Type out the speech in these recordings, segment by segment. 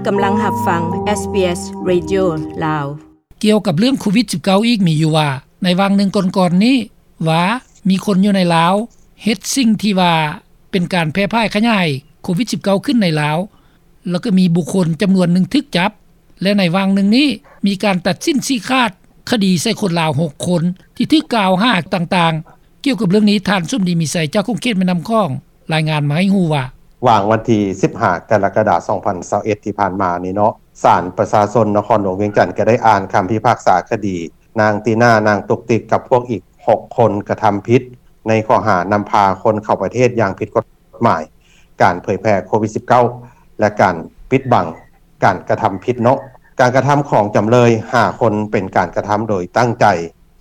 ກຳລັງຮັບຟັງ ເອສບີເອສ ເຣດິໂອ ລາວ. ກ່ຽວກັບເລື່ອງໂຄວິດສິບເກົ້າ ອີກມີຢູ່ວ່າ ໃນຫວ່າງໜຶ່ງກ່ອນໆນີ້ ວ່າມີຄົນຢູ່ໃນລາວເຮັດສິ່ງທີ່ວ່າເປັນການແຜ່ພາຍຂະຫຍາຍໂຄວິດສິບເກົ້າ ຂຶ້ນໃນລາວ ແລ້ວກໍມີບຸກຄົນຈຳນວນໜຶ່ງຖືກຈັບ ແລະ ໃນຫວ່າງໜຶ່ງນີ້ ມີການຕັດສິນຊີ້ຂາດຄະດີໃສ່ຄົນລາວຫົກຄົນ ທີ່ຖືກກ່າວຫາຕ່າງໆ. ກ່ຽວກັບເລື່ອງນີ້ ທ່ານ ສົມດີ ມີໄຊ ຈາກຂົງເຂດແມ່ນ້ຳຂອງ ລາຍງານມາໃຫ້ຮູ້ວ່າ ຫວ່າງວັນທີສິບຫ້າ ກໍລະກະດາ ສອງພັນຊາວເອັດ ທີ່ຜ່ານມານີ້ເນາະ ສານປະຊາຊົນນະຄອນຫຼວງວຽງຈັນ ກໍໄດ້ອ່ານຄຳພິພາກສາຄະດີ ນາງຕີນາ ນາງຕຸກຕິກ ກັບພວກອີກຫົກຄົນ ກະທຳຜິດໃນຂໍ້ຫານຳພາຄົນເຂົ້າປະເທດຢ່າງຜິດກົດໝາຍ, ການເຜີຍແຜ່ໂຄວິດສິບເກົ້າ ແລະ ການປິດບັງການກະທຳຜິດເນາະ. ການກະທຳຂອງຈຳເລີຍຫ້າຄົນ ເປັນການກະທຳໂດຍຕັ້ງໃຈ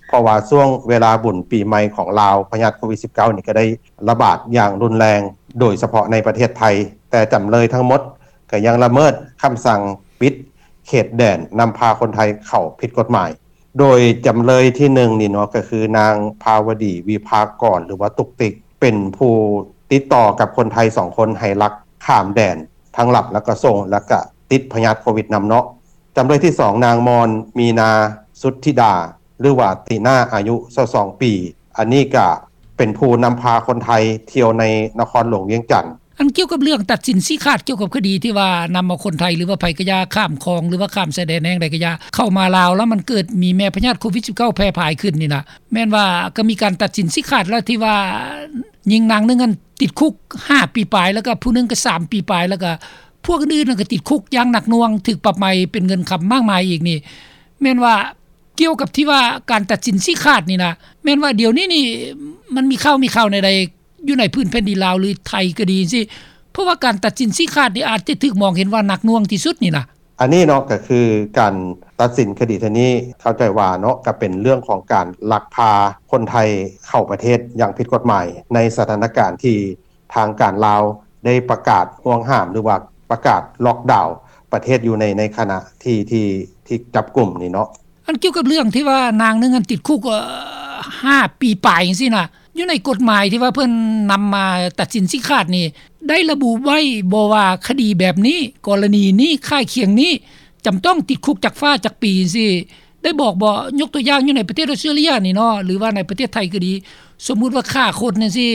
ເພາະວ່າຊ່ວງເວລາບຸນປີໃໝ່ຂອງລາວ ພະຍາດໂຄວິດສິບເກົ້າ ນີ້ກໍໄດ້ລະບາດຢ່າງຮຸນແຮງ ໂດຍສະເພາະໃນປະເທດໄທ, ແຕ່ຈຳເລີຍທັງໝົດກໍຍັງລະເມີດຄຳສັ່ງປິດເຂດແດນ ນຳພາຄົນໄທເຂົ້າຜິດກົດໝາຍ. ໂດຍຈຳເລີຍທີໜຶ່ງນີ້ເນາະ ກໍຄືນາງພາວະດີ ວິພາກອນ ຫຼືວ່າຕຸກຕິກ ເປັນຜູ້ຕິດຕໍ່ກັບຄົນໄທສອງຄົນ ໃຫ້ລັກຂ້າມແດນ ທັງລັບ ແລ້ວກໍສົ່ງ ແລ້ວກໍຕິດພະຍາດໂຄວິດນຳເນາະ. ຈຳເລີຍທີສອງ ນາງມອນ ມີນາ ສຸດທິດາ ຫຼືວ່າຕີນາ ອາຍຸຊາວສອງປີ, ອັນນີ້ກະເປັນຜູ້ນຳພາຄົນໄທທ່ຽວໃນນະຄອນຫຼວງວຽງຈັນ. ອັນກ່ຽວກັບເລື່ອງຕັດສິນຊີ້ຂາດກ່ຽວກັບຄະດີທີ່ວ່ານຳເອົາຄົນໄທ ຫຼືວ່າໃຜກະຢ່າ ຂ້າມຂອງ ຫຼືວ່າຂ້າມຊາຍແດນແຫ່ງໃດກະຢ່າ ເຂົ້າມາລາວ ແລ້ວມັນເກີດມີແມ່ພະຍາດໂຄວິດສິບເກົ້າ ແຜ່ພາຍຂຶ້ນນີ້ນະ ແມ່ນວ່າກໍມີການຕັດສິນຊີ້ຂາດແລ້ວ ທີ່ວ່າຍິງນາງໜຶ່ງຫັ້ນຕິດຄຸກຫ້າປີປາຍ ແລ້ວກໍຜູ້ໜຶ່ງກໍສາມປີປາຍ ແລ້ວກໍພວກອື່ນໆນັ້ນກໍຕິດຄຸກຢ່າງໜັກໜ່ວງ ຖືກປັບໃໝເປັນເງິນຄຳມາກມາຍອີກນີ້ ແມ່ນວ່າ ກ່ຽວກັບທີ່ວ່າການຕັດສິນຊີ້ຂາດນີ້ນະ ແມ່ນວ່າດຽວນີ້ນີ້ ມັນມີຂ່າວ ມີຂ່າວແນວໃດຢູ່ໃນພື້ນແຜ່ນດິນລາວ ຫຼືໄທກໍດີຊີ້ ເພາະວ່າການຕັດສິນຊີ້ຂາດນີ້ອາດຈະຖືກມອງເຫັນວ່າໜັກໜ່ວງທີ່ສຸດນີ້ນະ. ອັນນີ້ເນາະ ກໍຄືການຕັດສິນຄະດີເທື່ອນີ້ ເຂົ້າໃຈວ່າເນາະ ກໍເປັນເລື່ອງຂອງການລັກພາຄົນໄທເຂົ້າປະເທດຢ່າງຜິດກົດໝາຍ ໃນສະຖານະການທີ່ ທາງການລາວໄດ້ປະກາດຫ່ວງຫ້າມ ຫຼືວ່າປະກາດລັອກດາວປະເທດຢູ່ໃນ ໃນຂະນະທີ່ ທີ່ ທີ່ຈັບກຸມນີ້ເນາະ. ອັນກ່ຽວກັບເລື່ອງທີ່ວ່ານາງໜຶ່ງຫັ້ນຕິດຄຸກ ເອີ ຫ້າປີປາຍຈັ່ງຊີ້ນະ ຢູ່ໃນກົດໝາຍທີ່ວ່າເພິ່ນນຳມາຕັດສິນຊີ້ຂາດນີ້ ໄດ້ລະບຸໄວ້ບໍ່ວ່າຄະດີແບບນີ້ ກໍລະນີນີ້ ຄ້າຍຄຽງນີ້ ຈຳຕ້ອງຕິດຄຸກຈັກຟ້າຈັກປີຈັ່ງຊີ້ ໄດ້ບອກບໍ່? ຍົກຕົວຢ່າງຢູ່ໃນປະເທດອອສເຕຣເລັຍນີ້ເນາະ ຫຼືວ່າໃນປະເທດໄທກໍດີ ສົມມຸດວ່າຂ້າຄົນຈັ່ງຊີ້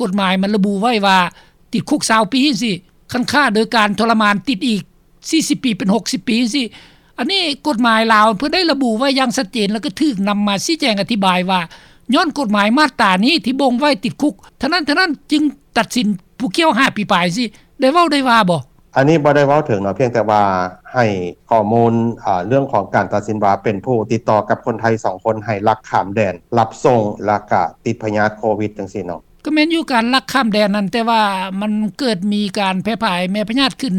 ກົດໝາຍມັນລະບຸໄວ້ວ່າຕິດຄຸກຊາວປີຈັ່ງຊີ້ ຄັນຂ້າໂດຍການທໍລະມານຕິດອີກສີ່ສິບປີ ເປັນຫົກສິບປີຈັ່ງຊີ້. ອັນນີ້ກົດໝາຍລາວເພິ່ນໄດ້ລະບຸໄວ້ຢ່າງຊັດເຈນ ແລ້ວກໍຖືກນຳມາຊີ້ແຈງອະທິບາຍວ່າ ຍ້ອນກົດໝາຍມາດຕານີ້ທີ່ບົ່ງໄວ້ຕິດຄຸກເທົ່ານັ້ນເທົ່ານັ້ນ ຈຶ່ງຕັດສິນຜູ້ກ່ຽວຫ້າປີປາຍຊີ້ ໄດ້ເວົ້າໄດ້ວ່າບໍ່? ອັນນີ້ບໍ່ໄດ້ເວົ້າເຖິງເນາະ ພຽງແຕ່ວ່າໃຫ້ຂໍ້ມູນ ເອີ ເລື່ອງຂອງການຕັດສິນວ່າເປັນຜູ້ຕິດຕໍ່ກັບຄົນໄທສອງຄົນ ໃຫ້ລັກຂ້າມແດນ ລັບສົ່ງ ແລ້ວກະຕິດພະຍາດໂຄວິດຈັ່ງຊີ້ເນາະ. ກໍແມ່ນຢູ່ ການລັກຂ້າມແດນນັ້ນ ແຕ່ວ່າມັນເກີດມີການແຜ່ພາຍແມ່ພະຍາດຂຶ້ນ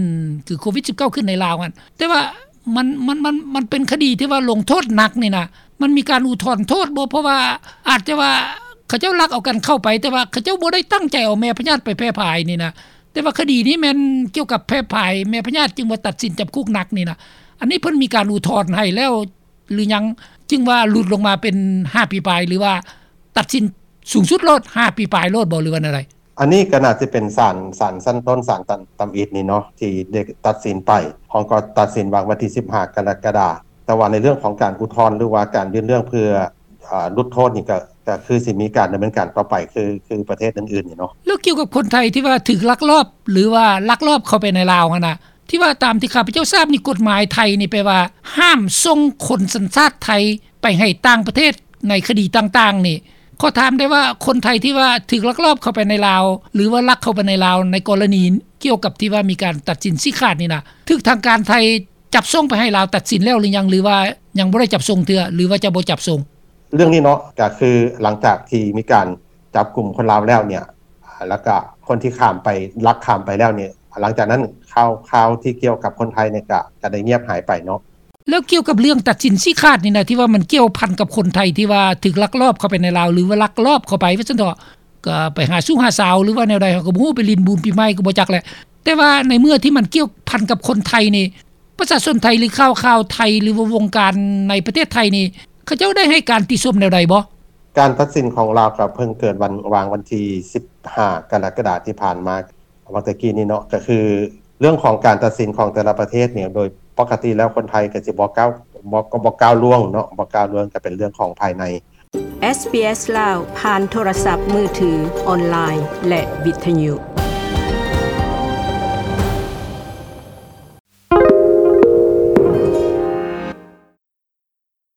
ຄືໂຄວິດສິບເກົ້າ ຂຶ້ນໃນລາວຫັ້ນ ແຕ່ວ່າ ມັນ ມັນ ມັນ ມັນເປັນຄະດີທີ່ວ່າລົງໂທດໜັກນີ້ນະ ມັນມີການອຸທອນໂທດບໍ່? ເພາະວ່າອາດຈະວ່າເຂົາເຈົ້າລັກເອົາກັນເຂົ້າໄປ ແຕ່ວ່າເຂົາເຈົ້າບໍ່ໄດ້ຕັ້ງໃຈເອົາແມ່ພະຍາດໄປແຜ່ພາຍນີ້ນະ ແຕ່ວ່າຄະດີນີ້ແມ່ນກ່ຽວກັບແຜ່ພາຍແມ່ພະຍາດ ຈຶ່ງວ່າຕັດສິນຈຳຄຸກໜັກນີ້ນະ. ອັນນີ້ເພິ່ນມີການອຸທອນໃຫ້ແລ້ວ ຫຼືຍັງ ຈຶ່ງວ່າຫຼຸດລົງມາເປັນຫ້າປີປາຍ ຫຼືວ່າຕັດສິນສູງສຸດໂລດ ຫ້າປີປາຍໂລດບໍ່ ຫຼືວ່າແນວໃດ? ອັນນີ້ກໍໜ້າຈະເປັນສານ ສານຊັ້ນຕົ້ນ ສານຕຳ ຕຳອິດນີ້ເນາະ ທີ່ໄດ້ຕັດສິນໄປ. ເຮົາກໍຕັດສິນວ່າງວັນທີສິບຫ້າ ກໍລະກະດາ. ແຕ່ວ່າໃນເລື່ອງຂອງການອຸທອນ ຫຼືວ່າການຍື່ນເລື່ອງເພື່ອ ອາ ຫຼຸດໂທດນີ້ ກໍ ກໍຄືຊິມີການດຳເນີນການຕໍ່ໄປ ຄື ຄືປະເທດອື່ນໆນີ້ເນາະ. ແລ້ວກ່ຽວກັບຄົນໄທທີ່ວ່າຖືກລັກລອບ ຫຼືວ່າລັກລອບເຂົ້າໄປໃນລາວຫັ້ນນະ ທີ່ວ່າຕາມທີ່ຂ້າພະເຈົ້າຊາບນີ້ ກົດໝາຍໄທນີ້ແປວ່າຫ້າມສົ່ງຄົນສັນຊາດໄທໄປໃຫ້ຕ່າງປະເທດໃນຄະດີຕ່າງໆນີ້ ຂໍຖາມໄດ້ວ່າ ຄົນໄທທີ່ວ່າຖືກລັກລອບເຂົ້າໄປໃນລາວ ຫຼືວ່າລັກເຂົ້າໄປໃນລາວ ໃນກໍລະນີກ່ຽວກັບທີ່ວ່າມີການຕັດສິນຊີ້ຂາດນີ້ນະ ຖືກທາງການໄທຈັບສົ່ງໄປໃຫ້ລາວຕັດສິນແລ້ວຫຼືຍັງ ຫຼືວ່າຍັງບໍ່ໄດ້ຈັບສົ່ງເທື່ອ ຫຼືວ່າຈະບໍ່ຈັບສົ່ງ? ເລື່ອງນີ້ເນາະ ກໍຄືຫຼັງຈາກທີ່ມີການຈັບກຸມຄົນລາວແລ້ວເນຍ ແລ້ວກະຄົນທີ່ຂ້າມໄປ ລັກຂ້າມໄປແລ້ວນີ້ ຫຼັງຈາກນັ້ນຂ່າວ ຂ່າວທີ່ກ່ຽວກັບຄົນໄທນີ້ກະ ກະໄດ້ງຽບຫາຍໄປເນາະ. ແລ້ວກ່ຽວກັບເລື່ອງຕັດສິນຊີ້ຂາດນີ້ນະ ທີ່ວ່າມັນກ່ຽວພັນກັບຄົນໄທທີ່ວ່າຖືກລັກລອບເຂົ້າໄປໃນລາວ ຫຼືວ່າລັກລອບເຂົ້າໄປວ່າຊັ້ນເຖາະ ກະໄປຫາຊູ້ຫາສາວ ຫຼືວ່າແນວໃດ ເຮົາກໍບໍ່ຮູ້ ໄປຫຼິ້ນບຸນປີໃໝ່ກໍບໍ່ຈັກແຫຼະ ແຕ່ວ່າໃນເມື່ອທີ່ມັນກ່ຽວພັນກັບຄົນໄທນີ້ ປະຊາຊົນໄທ ຫຼືຂ່າວ ຂ່າວໄທ ຫຼືວ່າວົງການໃນປະເທດໄທນີ້ ເຂົາເຈົ້າໄດ້ໃຫ້ການຕິຊົມແນວໃດບໍ່? ການຕັດສິນຂອງລາວກໍເພິ່ງເກີດວັນ ຫວ່າງວັນທີສິບຫ້າ ກໍລະກະດາທີ່ຜ່ານມາ ຫວ່າງແຕ່ກີ້ນີ້ເນາະ ກໍຄື ເລື່ອງຂອງການຕັດສິນຂອງແຕ່ລະປະເທດນີ້ ໂດຍປົກກະຕິແລ້ວຄົນໄທກໍຊິບໍ່ກ້າວ ບໍ່ ກໍບໍ່ກ້າວລ່ວງເນາະ ບໍ່ກ້າວລ່ວງ ກໍເປັນເລື່ອງຂອງພາຍໃນ. ເອສບີເອສລາວ ຜ່ານໂທລະສັບມືຖື, ອອນລາຍ ແລະ ວິທຍຸ.